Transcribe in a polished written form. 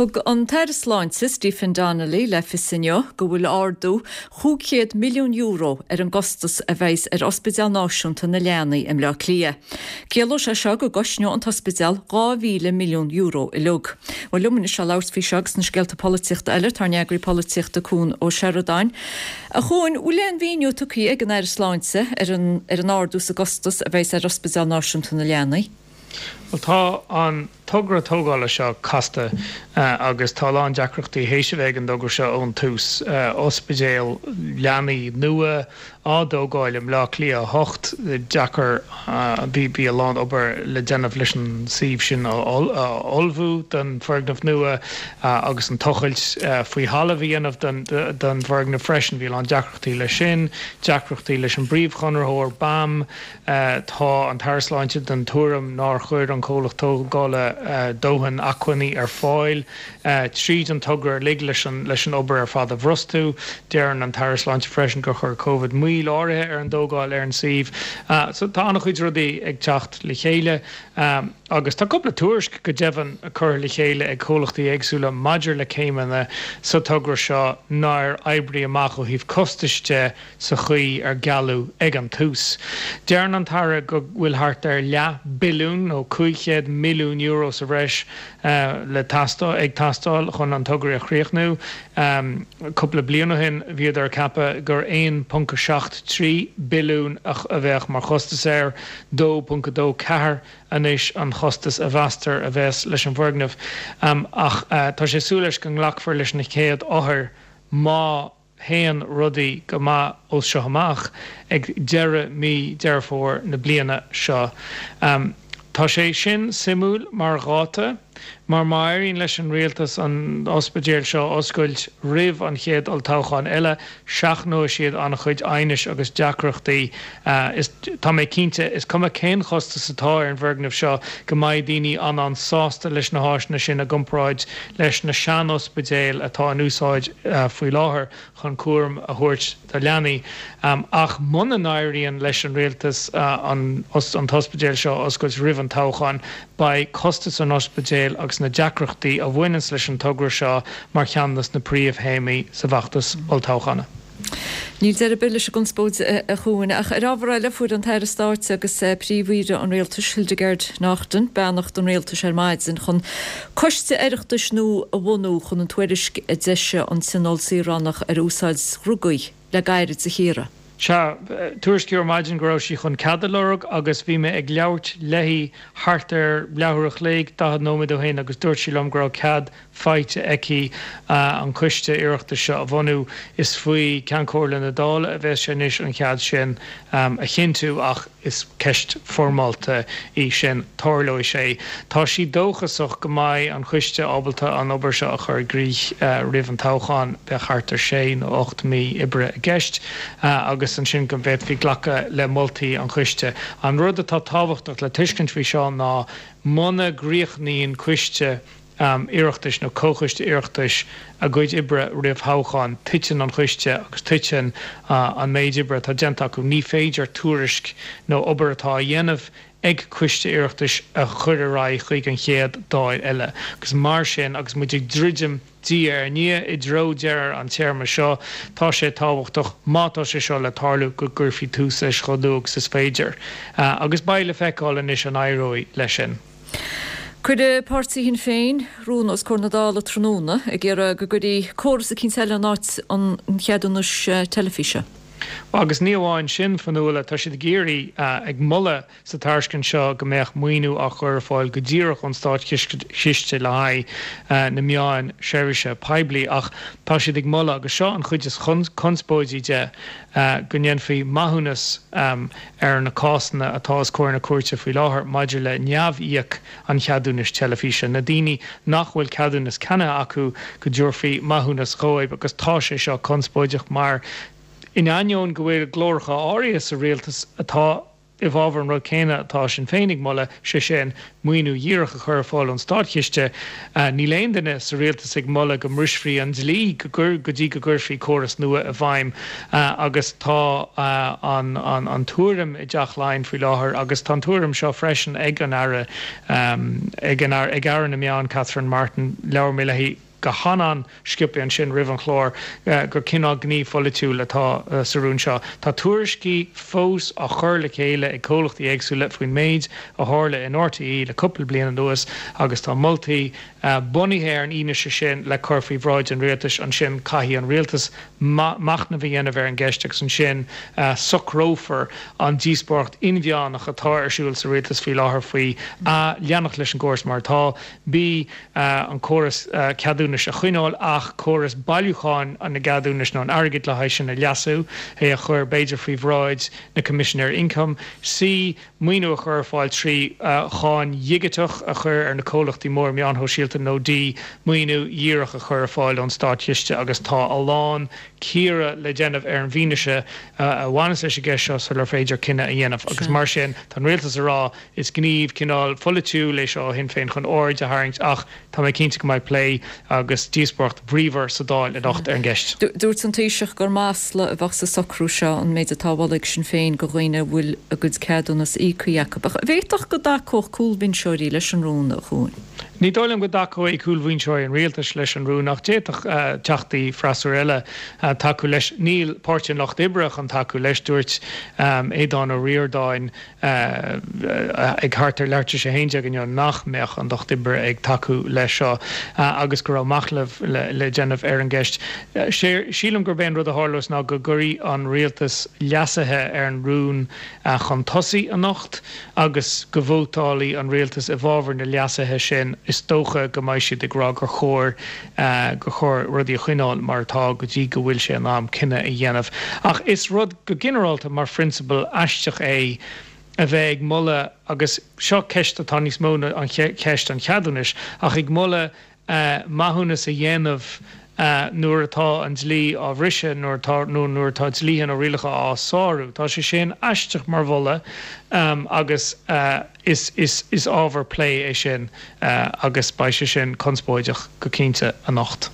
Thug an tAire Sláinte Stephen Donnelly le fios inniu go bhfuil ardú €500 milliún ar an gcostas a bheas ar Ospidéal Náisiúnta na Leanaí i mBleá Cliath. Ciallóidh sé seo go gcosnóidh an t-ospidéal €2,000 milliún uilig. Bhuel liom anois le labhairt faoi seo agus na scéalta polaitíochta eile tá ár n-eagraí polaitíochta Cuan Ó Seireadáin. A Chuain, bhfuil aon mhíniú tugtha ag an Aire Sláinte ar an ardú sa gcostas a bheas ar Ospidéal Náisiúnta na Leanaí? Bhuel tá an togra tógála seo casta agus tá a lán deacrachtaí théis a bheith ag an dtogra seo ón tús. Ospidéal leanaí nua á dtógáil i mBleá Cliath 8, deacair, bhí a lán obair le déanamh leis an suíomh sin a ullmhú don foirgneamh nua agus an tochailt faoi thalamh a dhéanamh don bhfoirgneamh freisin. Bhí a lán deacrachtaí leis sin, deacrachtaí leis an bpríomhchonraitheoir, BAM, Tá an tAire Sláinte den tuairim nár chuir an comhlacht tógála dóthain acmhainní ar fáil tríd an togra uilig leis an obair ar fad a bhrostú. Deireann an tAire Sláinte freisin gur chuir Covid moill áirithe ar an dtógáil ar an suíomh. So tá an-chuid rudaí ag teacht le chéile agus tá cúpla tuairisc go deimhin curtha le chéile ag comhlachtaí éagsúla maidir le céimeanna sa togra seo nár oibrigh amach ó thaobh costais de sa chaoi ar gealladh ag an tús. Deireann an tAire go bhfuil thart ar leath billiún nó €500 milliún sa bhreis le teastáil ag teastáil chun an togra a chríochnú. Cúpla bliain ó shin bhíodar ag ceapadh gur 1.73 billiún a bheadh mar chostas air, 2.24 anois an chostas a mheastar a bheas leis an bhfoirgneamh. Ach tá sé ag súil leis go nglacfar leis na chéad othair má théann rudaí go maith ó seo amach ag deireadh mí Deireadh Fómhair na bliana seo. Tá sé sin suimiúil mar dháta mar má éiríonn leis an rialtas an ospidéal seo a oscailt roimh an chéad olltoghchán eile, seachnóidh siad an-chuid aighnis agus deacrachtaí. Is tá mé cinnte, is cuma cén chostas atá ar an bhfoirgneamh seo, go mbeidh daoine an-an-sásta leis na háiseanna sin i gcomparáid leis na sean-ospidéil atá in úsáid faoi láthair chun cúram a thabhairt do leanaí. Ach muna n-éiríonn leis an rialtas an t-ospidéal seo a oscailt roimh an toghchán, beidh costas an ospidéil agus na deacrachtaí a bhaineanns leis an togra seo mar cheann de na príomhthéamaí sa bhfeachtas olltoghchána. Níl deireadh ar bith leis an gconspóid, a Chuain. Ach ar ábhar eile, fuair an tAire Stáit agus Príomh-Aoire an Rialtais, Hildegarde Naughton, beannacht an Rialtais ar maidin chun coiste Oireachtais nua a bhunú chun an tuairisc a d'eisigh an Tionól Saoránach ar úsáid dhrugaí le gairid a chíoradh. Sea, tuairiscíodh ar maidin go raibh sí chun cead a lorg agus bhí mé ag labhairt léi thart ar leathuair a chloig, 40 nóiméad ó shin agus dúirt sí liom go raibh cead faighte aici an coiste Oireachtais seo a bhunú. Is faoi Ceann Comhairle na Dála a bheas sé anois an cead sin a chinntiú ach is ceist foirmeálta í sin. Tarlóidh sé. Tá sí dóchasach go mbeidh an coiste ábalta an obair seo a chur i gcrích roimh an toghchán, bheadh thart ar sé nó 8 mí oibre i gceist, agus ansin go bhféadfaí glacadh le moltaí an choiste. An rud atá tábhachtach le tuiscint faoi seo ná muna gcríochnaíonn coiste Oireachtais nó Comhchoiste Oireachtais a gcuid oibre roimh thoghchán, titeann an coiste agus titeann an méid oibre atá déanta acu. Ní féidir tuairisc nó obair atá á dhéanamh ag Coiste Oireachtais a chur ar aghaidh chuig an chéad Dáil eile. Agus mar sin, agus muid ag druidim diaidh ar ndiaidh i dtreo deireadh an téarma seo, tá sé tábhachtach, má tá sé seo le tarlú, go gcuirfí tús leis chomh luath agus is féidir. Agus beidh le feiceáil anois an éireoidh leis sin. Cuirfidh páirtí Shinn Féin rún os comhair na Dála tráthnóna ag iarraidh go gcuirfí córas eicínt eile in áit an cheadúnais teilifíse. Agus ní amháin sin, Fionnuala, tá siad ag iarraidh, ag moladh sa tairiscint seo go mbeadh maoiniú á chur ar fáil go díreach ón státchiste le haghaidh na meáin seirbhíse poiblí ach tá siad ag moladh, agus seo an chuid is conspóidí de, go ndéanfaí maithiúnas ar na cásanna atá os comhair na cúirte faoi láthair maidir le neamh-íoc an cheadúnais teilifíse, na daoine nach bhfuil ceadúnas ceannaithe acu, go dtabharfaí maithiúnas dhóibh agus tá sé seo conspóideach mar in ainneoin go bhfuil glóracha áirithe sa rialtas atá. i bhfabhar an rud céanna atá Sinn Féin ag moladh, sé sin, maoiniú dhíreach a chur ar fáil ón státchiste. Níl aon duine sa rialtas ag moladh go mbrisfí an dlí go dtí go gcuirfí córas nua i bhfeidhm agus tá an tuairim i dTeach Laighean faoi láthair agus tá an tuairim seo freisin ag an Aire, ag Aire na Meán Catherine Martin, labhair mé léi, go han-an-sciobtha ansin roimh an chlár gur cineál gníomh pholaitiúil atá sa rún seo. Tá tuairiscí fós á chur le chéile ag comhlachtaí éagsúla faoin méid a tharla in RTÉ le cúpla bliain anuas agus tá moltaí bunaithe ar an fhianaise sin le cur faoi bhráid an rialtais. Ansin caithfidh an rialtas machnamh a dhéanamh ar an gceist agus ansin socrófar an díospóireacht inmheánach atá ar siúl sa rialtas faoi láthair faoi A, leanacht leis an gcóras mar atá, B, an córas ceadúnais a choinneáil ach córas bailiúcháin na gceadúnais nó an airgid le haghaidh sin a leasú, é a chur b'fhéidir faoi bhráid na Coimisinéirí Ioncaim, C, maoiniú a chur ar fáil trí cháin dhigiteach a chur ar na comhlachtaí móra meáin shóisialta nó D, maoiniú dhíreach a chur ar fáil ón státchiste agus tá a lán cíoradh le déanamh ar an bhfianaise a bhaineas leis an gceist seo sular féidir cinneadh a dhéanamh agus mar sin tá an rialtas ag rá Is gníomh cineál pholaitiúil é seo ó Shinn Féin chun aird a tharraingt ach tá mé cinnte go mbeidh plé agus díospóireacht bhríomhar sa Dáil anocht ar an gceist. Dúirt an Taoiseach gur masla a bheadh sa socrú seo, an méid atá á mholadh ag Sinn Féin do dhaoine a bhfuil a gcuid ceadúnas íoctha acu. Ach an bhféadfadh go dtacódh cúlbhinseoirí leis an rún, a Chuain? Ní dóigh liom go dtacóidh cúlbhinseoirí an rialtais leis an rún ach d'fhéadfadh teachtaí freasúra eile tacú leis. Níl Páirtí an Lucht Oibre chun tacú leis, dúirt Aodhán Ó Ríordáin. ag thart ar leathuair tar éis a 11 inniu nach mbeadh an Lucht Oibre ag tacú leis seo agus go raibh machnamh le déanamh ar an gceist. Sílim gurb é an rud a tharlós ná go gcuirfidh an rialtas leasuithe ar an rún chun tosaigh anocht agus go vótálfaidh an rialtas i bhfabhar na leasuithe sin. Is dócha go mbeidh siad ag rá gur chóir gur chóir rudaí a choinneáil mar atá go dtí go bhfuil sé in am cinneadh a dhéanamh. Ach is rud go ginearálta mar phrionsabal aisteach é a bheith ag moladh, agus seo ceist atá níos mó ná an cheist an cheadúnais, ach ag moladh maithiúnas a dhéanamh nuair atá an dlí á bhriseadh, nuair atá, nó nuair atá dlíthe nó rialacha á sárú. Tá sé sin aisteach mar mholadh agus is, is, is ábhar plé é sin agus beidh sé sin conspóideach go cinnte anocht.